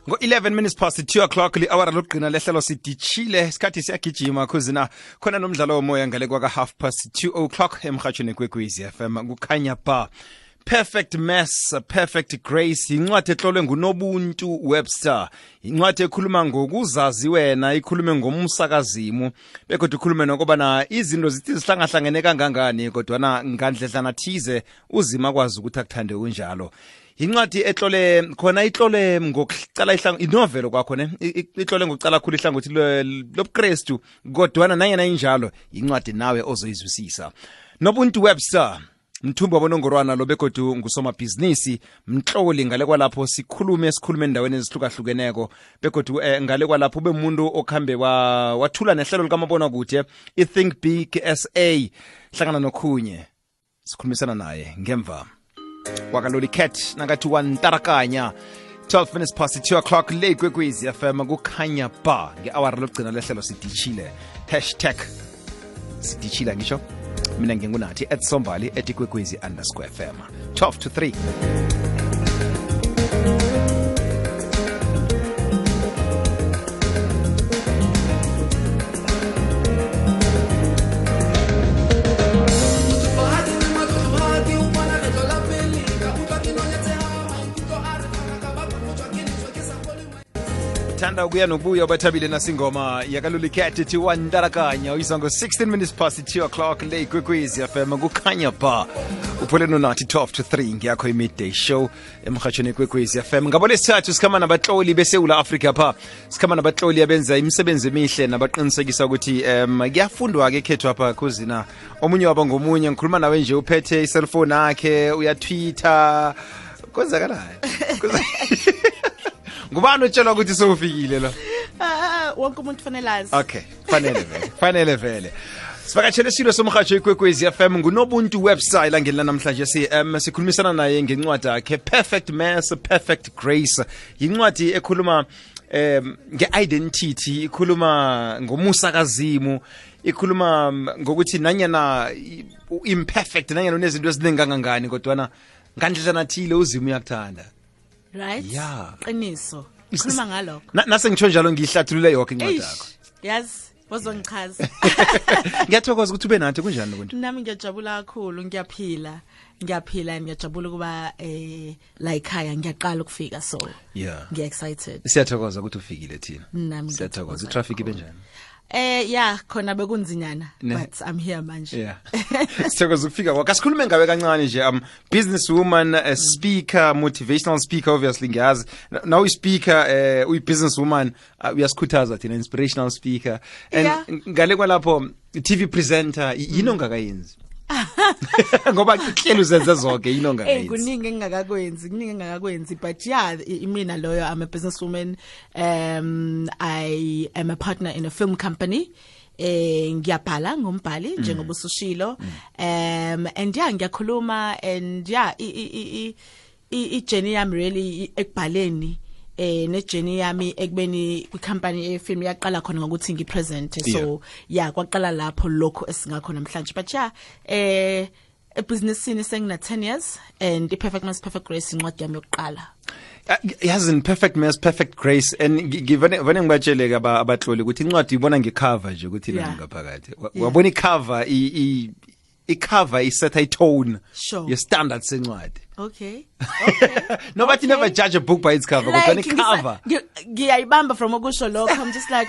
Ngo-11 minutes past 2 o'clock li-awara lokugqina lehlelo sidichile isikhathi siyagijima khuzina khona nomdlalo womoya ngale kwaka half past 2 o'clock emhatshweni kwekwezi FM kukhanya ba Perfect Mess, Perfect Grace, incwadi etlolwe nguNobuntu Webster. Incwadi ekhuluma ngokuzazi wena, ikhulume ngomsakazimu, bekodwa ikhulume nokubana izinto zithi zihlangahlangene kangangani kodwa ngandledlana thize uzima kwazi ukuthi akuthande kunjalo. Incwadi etlole khona itlole ngokucala inovelo kwakho ne itlole ngokucala khulu ihlangothi lobuKristu kodwa nanyana injalo incwadi nawe ozoyizwisisa. Nobuntu Webster Mthumba bonongorwana lo begodu ngusomabhizinisi mhloli ngale kwalapho sikhulume endaweni ezihlukahlukeneko begodu ngale kwalapho ube umuntu okhambe wathula nehlelo likamabona kude iThink Big SA hlangana nokhunye sikhulumisana naye ngemva wakaloli cat nakathi wantarakanya 12 minutes past 2 o'clock le kwekwezi FM kukhanya ba ngeawara lokugcina lehlelo sidichile #sidichila ngisho mina ngingunathi @sombali @kwekwezi_FM 12 to 3. Thanda ukuya nokubuya bathabile nasingoma yakaloli cat ethi wantarakanya uyizwa ngo-16 minutes past 2 o'clock le kwekwezi FM kukhanya ba uphole nonathi 12 to 3 ngiyakho i-midday show emhatshweni kwekwezi FM ngabo lesithathu sikhama nabatloli beSewula Africa pha sikhama nabatloli abenza imisebenzi emihle nabaqinisekisa ukuthi kuyafundwa-ke ekhethu apha khuzina omunye wabo ngomunye ngikhuluma nawe nje uphethe iselfoni yakhe uyatwitter kwenzakalani ngubani otshela ukuthi sowufikile la wonke umuntu kufanele azi. Okay, fanele vele sivakatshele silo somhatsho ikwekwezi FM nguNobuntu Webster langeni namhlanje sikhulumisana naye ngencwadi yakhe Perfect Mess, Perfect Grace. Yincwadi ekhuluma nge-identity, ikhuluma ngomusakazimu, ikhuluma ngokuthi nanyana imperfect nanyana unezinto eziningi kangangani kodwa ngandledlana thile uzimo uyakuthanda. Right? Yeah. Qiniso. Khuluma ngalokho. Nase ngitsho njalo ngiyihlathulule yonke incwadi yakho. Yazi, wazongichaza. Ngiyathokoza ukuthi ube nathi kunjani Nobuntu? Nami ngiyajabula kakhulu, ngiyaphila ngiyajabula kuba la ekhaya ngiyaqala ukufika so. Yeah. Ngiya excited. Siyathokoza ukuthi ufikile thina. Nami siyathokoza. Traffic ibenjani? Yeah, khona bekunzinyana but I'm here manje. Yeah. Sithokoza ukufika kwakho. Asikhulume ngawe kancane nje businesswoman, a speaker, motivational speaker obviously ngiyazi. Now uyi speaker, uyi businesswoman, uyasikhuthaza thina inspirational speaker and ngale kwalapho TV presenter yini ongakayenzi? Ngoba kuhlelo uzenza zonke yini ongakayenzi? Kuningi engingakakwenzi but yeah mina loyo I'm a businesswoman. I am a partner in a film company. Ngiyabhala ngombhali njengoba usushilo and yeah ngiyakhuluma and yeah i-journey yami really ekubhaleni ne-journey yami ekubeni kwi-company ye-film yaqala khona ngokuthi ngi-present so yeah kwaqala lapho lokho esingakho namhlanje but yeah ebusinessini sengina 10 years and i-Perfect Mess, Perfect Grace incwadi yami yokuqala. Yazi Perfect Mess, Perfect Grace and ngivane ngibatsheleke abatloli ukuthi incwadi ibona ngecover nje ukuthi nani ngaphakathi wabona icover icover isetha itone ye-standard sencwadi. Okay. No, but you never judge a book by its cover. Like, cover. Ngiyayibamba from okusho lokho. I'm just like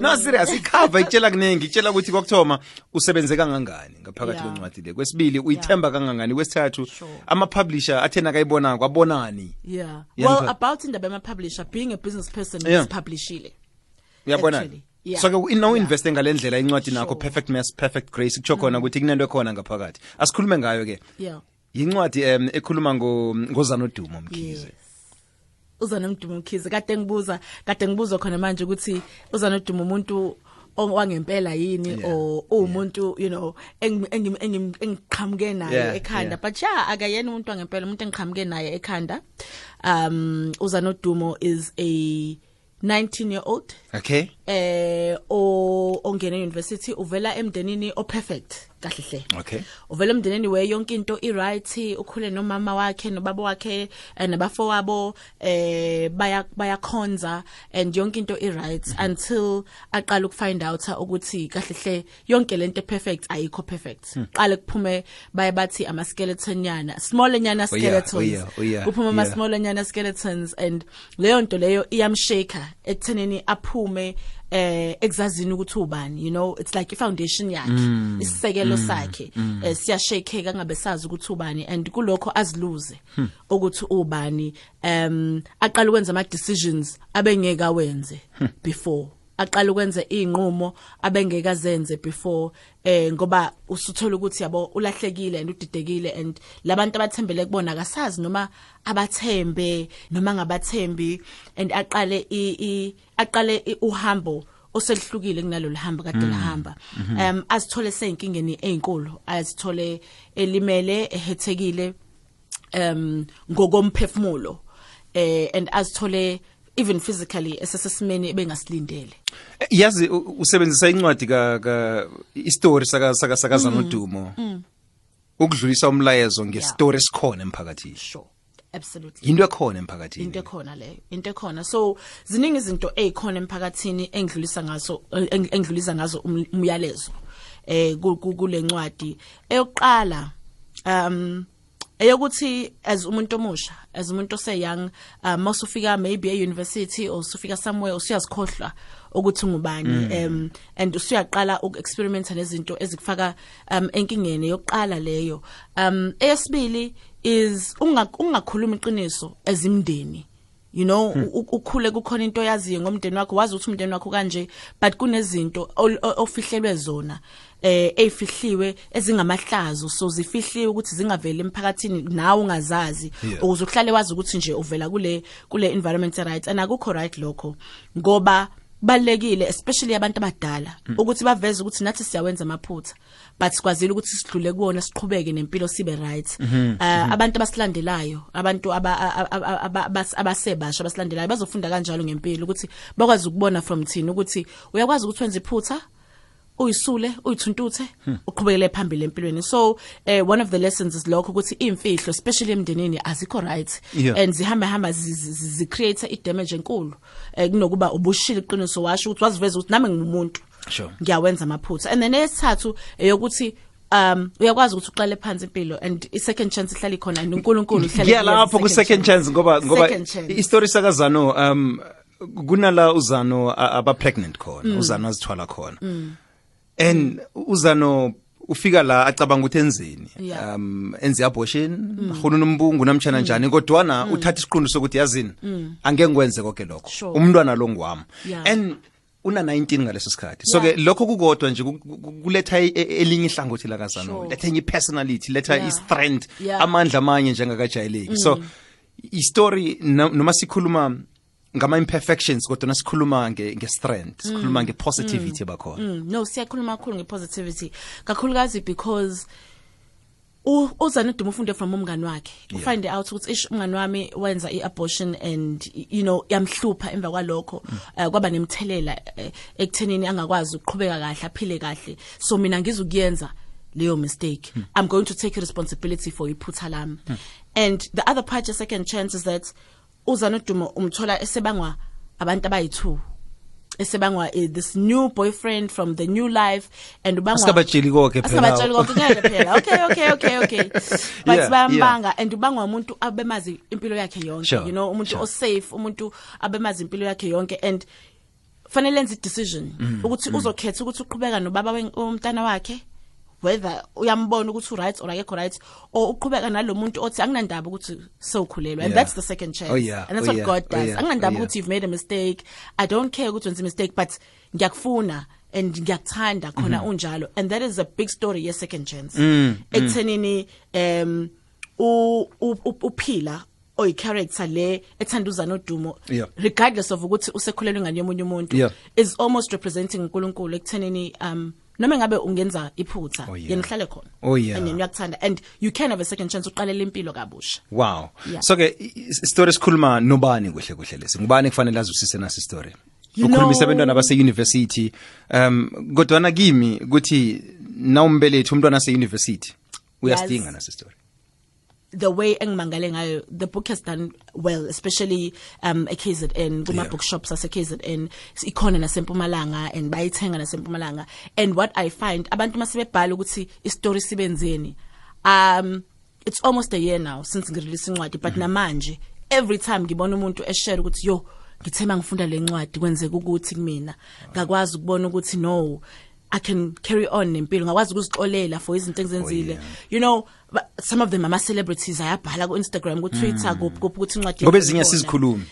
No, serious. Icover itshela kuningi, itshela ukuthi kokuthoma usebenze kangangani ngaphakathi kwencwadi le. Kwesibili uyithemba kangangani, kwesithathu ama publisher athena kayibona kwabonani. Yeah. Well, about indaba ama publisher being a business person is publishile. Uyabona? Yeah. So ino invest ngalendlela incwadi nakho Perfect Mess, Perfect Grace kutsho khona ukuthi kunento ekhona ngaphakathi. Asikhulume ngayo ke. Yeah. Yincwadi ekhuluma ngoZanodumo Mkhize. uZanodumo Mkhize kade ngibuza khona manje ukuthi uZanodumo umuntu wangempela yini or umuntu you know engiqhamuke naye ekhanda but yeah akayena umuntu wangempela umuntu engiqhamuke naye ekhanda. uZanodumo is a 19-year-old. Okay. Ongena university uvela emndenini o perfect. kahle hle. Okay. Uvela emndenini we yonke into i-right, ukhule nomama wakhe nobaba wakhe nabafowabo bayakhonza and yonke into i-right until aqala ukufind out ukuthi kahle hle yonke lento perfect ayikho perfect. Qale kuphume baye bathi ama skeleton nyana, small nyana skeletons. Uphume ama small nyana skeletons and leyo nto leyo iyamshaka ekuthenini aphume exazini ukuthi ubani, you know, it's like i-foundation yakhe, isisekelo sakhe siyashakeka ngabe sazi ukuthi ubani and kulokho aziluze ukuthi ubani, aqala ukwenza ama decisions abengeka wenze before, aqala ukwenza inqumo abengeka zenze before, ngoba usuthola ukuthi yabo ulahlekile and udidekile and labantu abathembele kubona akasazi noma abathembe noma ngabathembi and aqale uhambo oselihlukile kunalo lihamba kade lahamba, azithole seyinkingeni ezinkulu, azithole elimele ehethekile ngokomphefumulo, and azithole even physically esesesimeni ebengasilindele. Yazi usebenzisa incwadi ka istory saka Zanodumo ukudlulisa umlayezo ngestory esikhona emphakathini. Sure. Absolutely. Into ekhona emphakathini. Into ekhona leyo. Into ekhona. So ziningi izinto ezikhona emphakathini engidlulisa ngazo umyalezo kule ncwadi. Eyokuqala eyokuthi as umuntu omusha, as umuntu oseyoung, masufika maybe e-university or usufika somewhere usiyazikhohlwa ukuthi ngubani, and usuyaqala uku-experimenta nezinto ezikufaka enkingeni. Yokuqala leyo. Eyesibili is ungakhuluma iqiniso ezimndeni. You know, ukhule kukhona into yaziyo ngomndeni wakho, wazi ukuthi umndeni wakho kanje, but kunezinto ofihlelwe zona ezifihliwe ezingamahlazo, so zifihliwe ukuthi zingaveli emphakathini nawe ungazazi, ukuze uhlale wazi ukuthi nje uvela kule environment right, and akukho right lokho, ngoba balekile especially abantu abadala ukuthi baveze ukuthi nathi siyawenza amaphutha but sikwazile ukuthi sidlule kuona, siqhubeke nempilo sibe right. Abantu abasilandelayo, abantu abasebasha abasilandelayo bazofunda kanjalo ngempilo ukuthi bakwazi ukubona from thina ukuthi uyakwazi ukuthi wenze iphutha, uyisule, uyithuntuthe, uqhubekele phambili empilweni. So one of the lessons is lokho ukuthi imfihlo especially emndenini azikho right, and zihamba zi create i-damage enkulu kunokuba ubushile iqiniso washo ukuthi waziveza ukuthi nami ngimuntu ngiyawenza amaphutha. And then esithathu eyokuthi uyakwazi ukuthi uqale phansi impilo and i-second chance ihlala ikhona and uNkulunkulu ihlala lapho ku-second chance ngoba i-story saka Zano kunala uZano aba pregnant khona, uZano azithwala khona. And uZano ufika la acabanga ukuthi enzeni, enze abortion, khona umbungu namtshana njani, kodwa uthatha isiqundu sokuthi yazini angeke ngwenze konke lokho, umntwana lo ngwami, and una 19 ngaleso sikhathi. So ke lokho kukodwa nje kuletha elinye ihlangothi la kaZano, letha enye personality, letha i-strength, amandla amanye njengakajayeleki. So i-story noma sikhuluma ngama imperfections kodwa nasikhuluma nge-strength, sikhuluma nge-positivity bakhona. No, siyakhuluma kakhulu nge-positivity kakhulukazi because uZanodumo ufunde from umngani wakhe, ufind out ukuthi umngani wami wenza i-abortion and you know yamhlupha emva kwalokho, kwaba nemthelela ekuthenini angakwazi ukuqhubeka kahle, aphile kahle. So mina ngizokuyenza leyo mistake, I'm going to take responsibility for iphutha lami. And the other part, your second chance, is that uZanodumo umthola esebangwa abantu abayi2, esebangwa this new boyfriend from the new life, and ubangwa asabatsheli konke phela okay but bambanga and ubangwa umuntu abemazi impilo yakhe yonke, you know, umuntu safe, umuntu abemazi impilo yakhe yonke, and fanele enze decision ukuthi uzokhetha ukuthi uqhubeka nobaba womntana wakhe, whether uyambona ukuthi right or akekho right, or uqhubeka nalomuntu othi anginandaba ukuthi sewukhulelwa, and that's the second chance. And that's what God does. Anginandaba ukuthi you've made a mistake, I don't care ukuthi wenze mistake, but ngiyakufuna and ngiyakuthanda khona unjalo, and that is a big story ye second chance. Ekuthenini uphila oy character le ethanda uZanodumo, regardless of ukuthi usekhulelwe ngani yomunye umuntu, is almost representing uNkulunkulu ekuthenini noma ngabe ungenza iphutha yena uhlale khona and uyakuthanda, and you can have a second chance uqalela impilo kabusha. Wow. So ke story sikhuluma nobani kuhle lesi, ngubani kufanele azwisise nasi story? ukhulumisa abantwana base university kodwa na kimi ukuthi nawumbelethi umntwana ase university uyastinga nase story. The way engimangale ngayo, the book has done well, especially KZN, kuma bookshops ase KZN, ikhona nasempumalanga and bayithenga nasempumalanga. And what I find, abantu masebebhala ukuthi istory sibenzeni. It's almost a year now since ngirelease incwadi, but namanje every time ngibona umuntu eshare ukuthi yo ngithema ngifunda le ncwadi kwenzeka ukuthi kumina ngakwazi ukubona ukuthi no, I can carry on nempilo, ngakwazi ukuzixolela for izinto engizenzile. You know, some of them are celebrities, ayabhala ku Instagram, ku Twitter, kuphi ukuthi incwadi ngoba ezinye sizikhulumi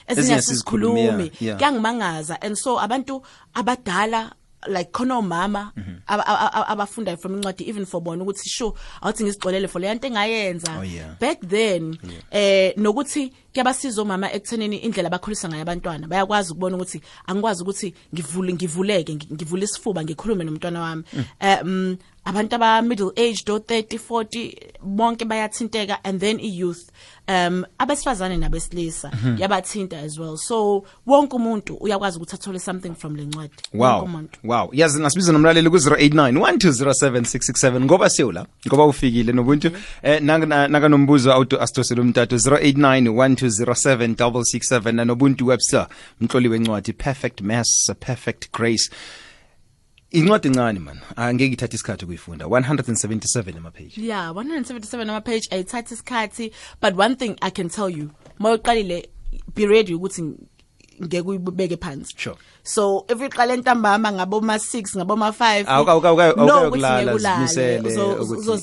kuyangimangaza. And so abantu abadala like khona umama abafunda from incwadi even for bona ukuthi sure awuthi ngizixolele for le nto engayenza back then nokuthi kuyabasiza omama ekuthenini indlela abakhulisa ngayo abantwana bayakwazi ukubona ukuthi angikwazi ukuthi ngivuleke ngivule isifuba ngikhulume nomntwana wami. Abantu aba middle aged or 30 40 bonke bayathinteka, and then youth abesifazane nabesilisa yabathinta as well. So wonke umuntu uyakwazi ukuthi athole something from le ncwadi. Wow yazi nasibiza nomlaleli ku 0891207667 ngoba sewula ngoba ufikile nobuntu naka nombuzo auto astoselo umtato 0891207667 nanobuntu Webster mhloli wencwadi Perfect Mass Perfect Grace. Incwadi encane man, angeke ithathe isikhathi ukuyifunda. 177 ama page. Yeah, 177 ama page ayithatha isikhathi, but one thing I can tell you, mawuqalile be ready ukuthi ngeke uyibeke phansi. Sure. So if uqala entambama ngabo ma 6 ngabo ma 5 awukulala zimisele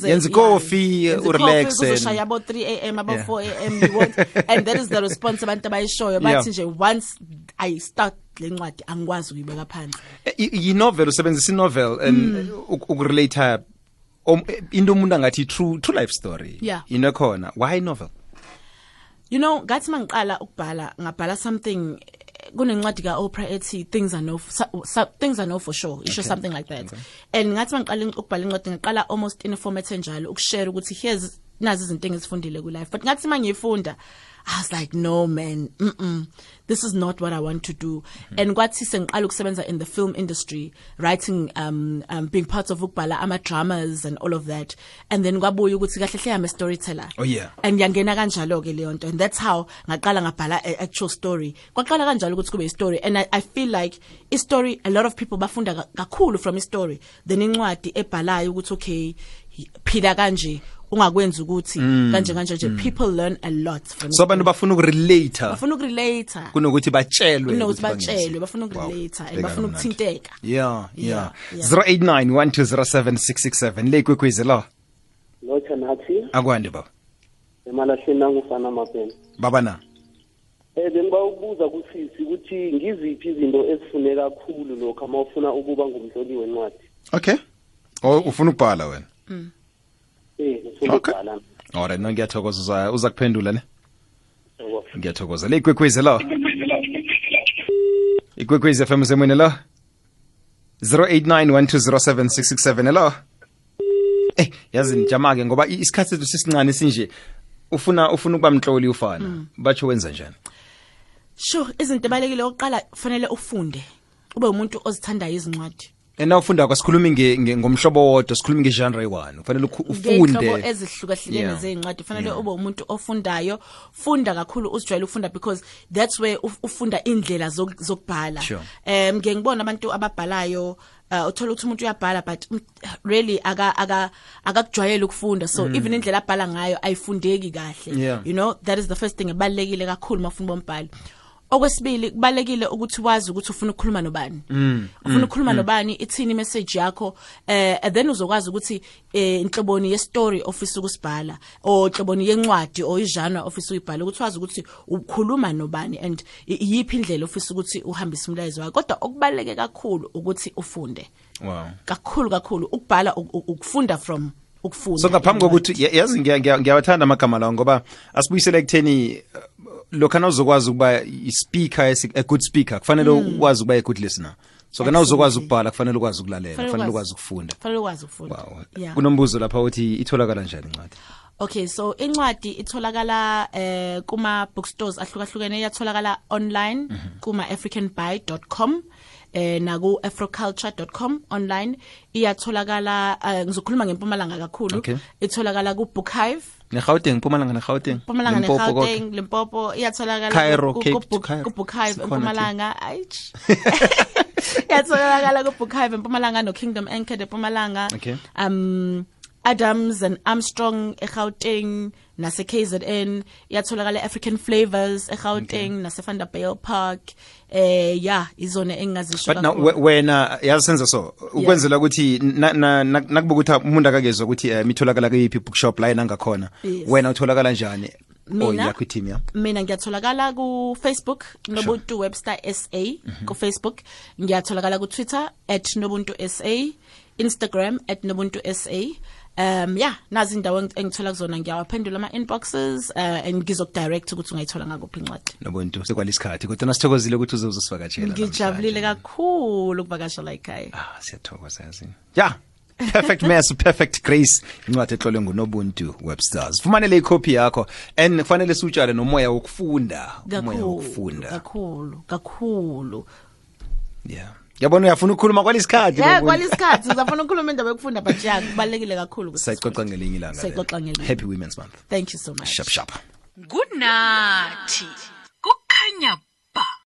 yenza coffee urelax uzoshaya abo 3 am abo 4 am you want, and that is the response abantu abayishoyo bathi nje once I start le ncwadi angikwazi ukuyibeka phansi. I-novel usebenzisa i-novel and ukurelate into umuntu angathi true life story inokhona. Why novel? You know, ngathi mangiqala ukubhala ngabhala something kunencwadi ka Oprah ethi things I know for sure, isho something like that. And ngathi mangiqala ukubhala incwadi ngaqala almost in a format enjalo ukushare ukuthi here's nazi izinto engizifundile ku life, but ngathi mangiyifunda I was like, no man, this is not what I want to do. And kwathi sengiqala ukusebenza in the film industry, writing, being part of ukubhala ama dramas and all of that. And then kwabuya ukuthi kahle hle I'm a storyteller. Oh yeah. And yangena kanjalo ke leyo nto, and that's how ngaqala ngabhala actual story. Kwaqala kanjalo ukuthi kube story, and I feel like a story, a lot of people bafunda kakhulu from a story. Then incwadi ebhalayo ukuthi okay, phila kanje ungakwenza ukuthi kanje nje people learn a lot from so abantu bafuna ukurelate kunokuthi batshelwe bafuna ukurelate bafuna ukuthinteka. Yeah 0891207667 le kwekwezi lo Thanathi akwande baba emalahleni nangufana mapeni baba na bengiba ukubuza kusisi ukuthi ngiziphi izinto ezifuneka kakhulu lokho uma ufuna ukuba ngumhloli wencwadi. Okay ufuna ukubhala wena Okay. Alright, ngiyathokoza uza kuphendula ne? Ngiyathokoza. Le ikwekwezi lo. Ikwekwezi FM semene lo. 0891207667 lo. Yazi nijama ke ngoba isikhathi sethu sisincane sinje ufuna ukuba mhloli ufana. Batsho wenza njani? Sure, izinto ebalekile oqala kufanele ufunde. Ube umuntu ozithandayo izincwadi. Ena ufunda kwasikhuluma ngomhlobo wodwa sikhuluma ngegenre one kufanele ufunde ngehlobo ezihlukahlukene zezincwadi kufanele ube umuntu ofundayo funda kakhulu uzijwayele ukufunda because that's where ufunda indlela zokubhala. Ngeke ngibona abantu ababhalayo uthola ukuthi umuntu uyabhala but really akakujwayele ukufunda, so even indlela abhala ngayo ayifundeki kahle. You know, that is the first thing ebalekile kakhulu mafuna bombhalo. Okwesibili kubalekile ukuthi wazi ukuthi ufuna ukukhuluma nobani. Ufuna ukukhuluma nobani, ithini message yakho, then uzokwazi ukuthi inhloboni ye story ofisa ukusibhala o inhloboni yencwadi o igenre ofisa uyibhala, ukuthi wazi ukuthi ukhuluma nobani and yiphi indlela ofisa ukuthi uhambise umlayezo wakho. Kodwa okubaleke kakhulu ukuthi ufunde. Wow. Kakhulu ukubhala ukufunda from ukufunda. So ngaphambi kokuthi yazi ngiyawathanda amagama lawo ngoba asibuyisele ekutheni lokhana uzokwazi ukuba a good speaker kufanele wazi ukuba a good listener. so kana uzokwazi Absolutely. ukubhala kufanele ukwazi ukulalela Kufanele kufanele ukwazi. ukwazi ukufunda Fanele ukwazi ukufunda. wow Yeah. kunombuzo lapha uthi itholakala njani incwadi Okay, so incwadi itholakala kuma bookstores ahlukahlukene, iyatholakala online kuma africanbuy.com na ku afroculture.com online, iyatholakala ngizokhuluma ngeMpumalanga kakhulu, Okay. itholakala ku Bookhive, neGauteng Mpumalanga neGauteng Mpumalanga Limpopo konke. neGauteng, Limpopo, iyatholakala Cairo, ku Cape, Cairo. Bookhive Sikhona eMpumalanga, ayich. Iyatholakala ku Bookhive eMpumalanga no Kingdom Anchored eMpumalanga. Okay. Adams and Armstrong eGauteng nase KZN, iyatholakala African Flavors eGauteng nase Vanderbilt Park, yeah izona engazisho but now kakhulu. wena yasenza so ukwenzela ukuthi nakubuka ukuthi umuntu akakezwa ukuthi mitholakala kuyiphi bookshop la yena ngakhona Yes. wena utholakala njani Mina? yakho team ya Mina ngiyatholakala ku Facebook Nobuntu Webster SA ku Facebook, ngiyatholakala ku Twitter @Nobuntu SA, Instagram @Nobuntu SA. Yeah, nazi indawo engithola kuzona, ngiyawaphendula ama inboxes and ngizokudirect ukuthi ungayithola ngakuphi incwadi. Nobuntu sekwalisikhathi kodwa nasithokozile ukuthi uzosivakatshela Ngijabulile kakhulu ukuvakashela ekhaya. siyathokoza yazi yeah perfect mess perfect grace incwadi etlolwe nguNobuntu Websters fumanele icopy yakho and kufanele siutshale nomoya wokufunda umoya wokufunda Kakhulu. yeah yabona uyafuna ukukhuluma kwalisikhathi Yeah, kwalisikhathi ngizafuna ukukhuluma indaba yokufunda, but yeah kubalekile kakhulu ukuthi sayixoxa ngelinye ilanga Sayixoxa ngelinye. happy women's month thank you so much. sharp Good night.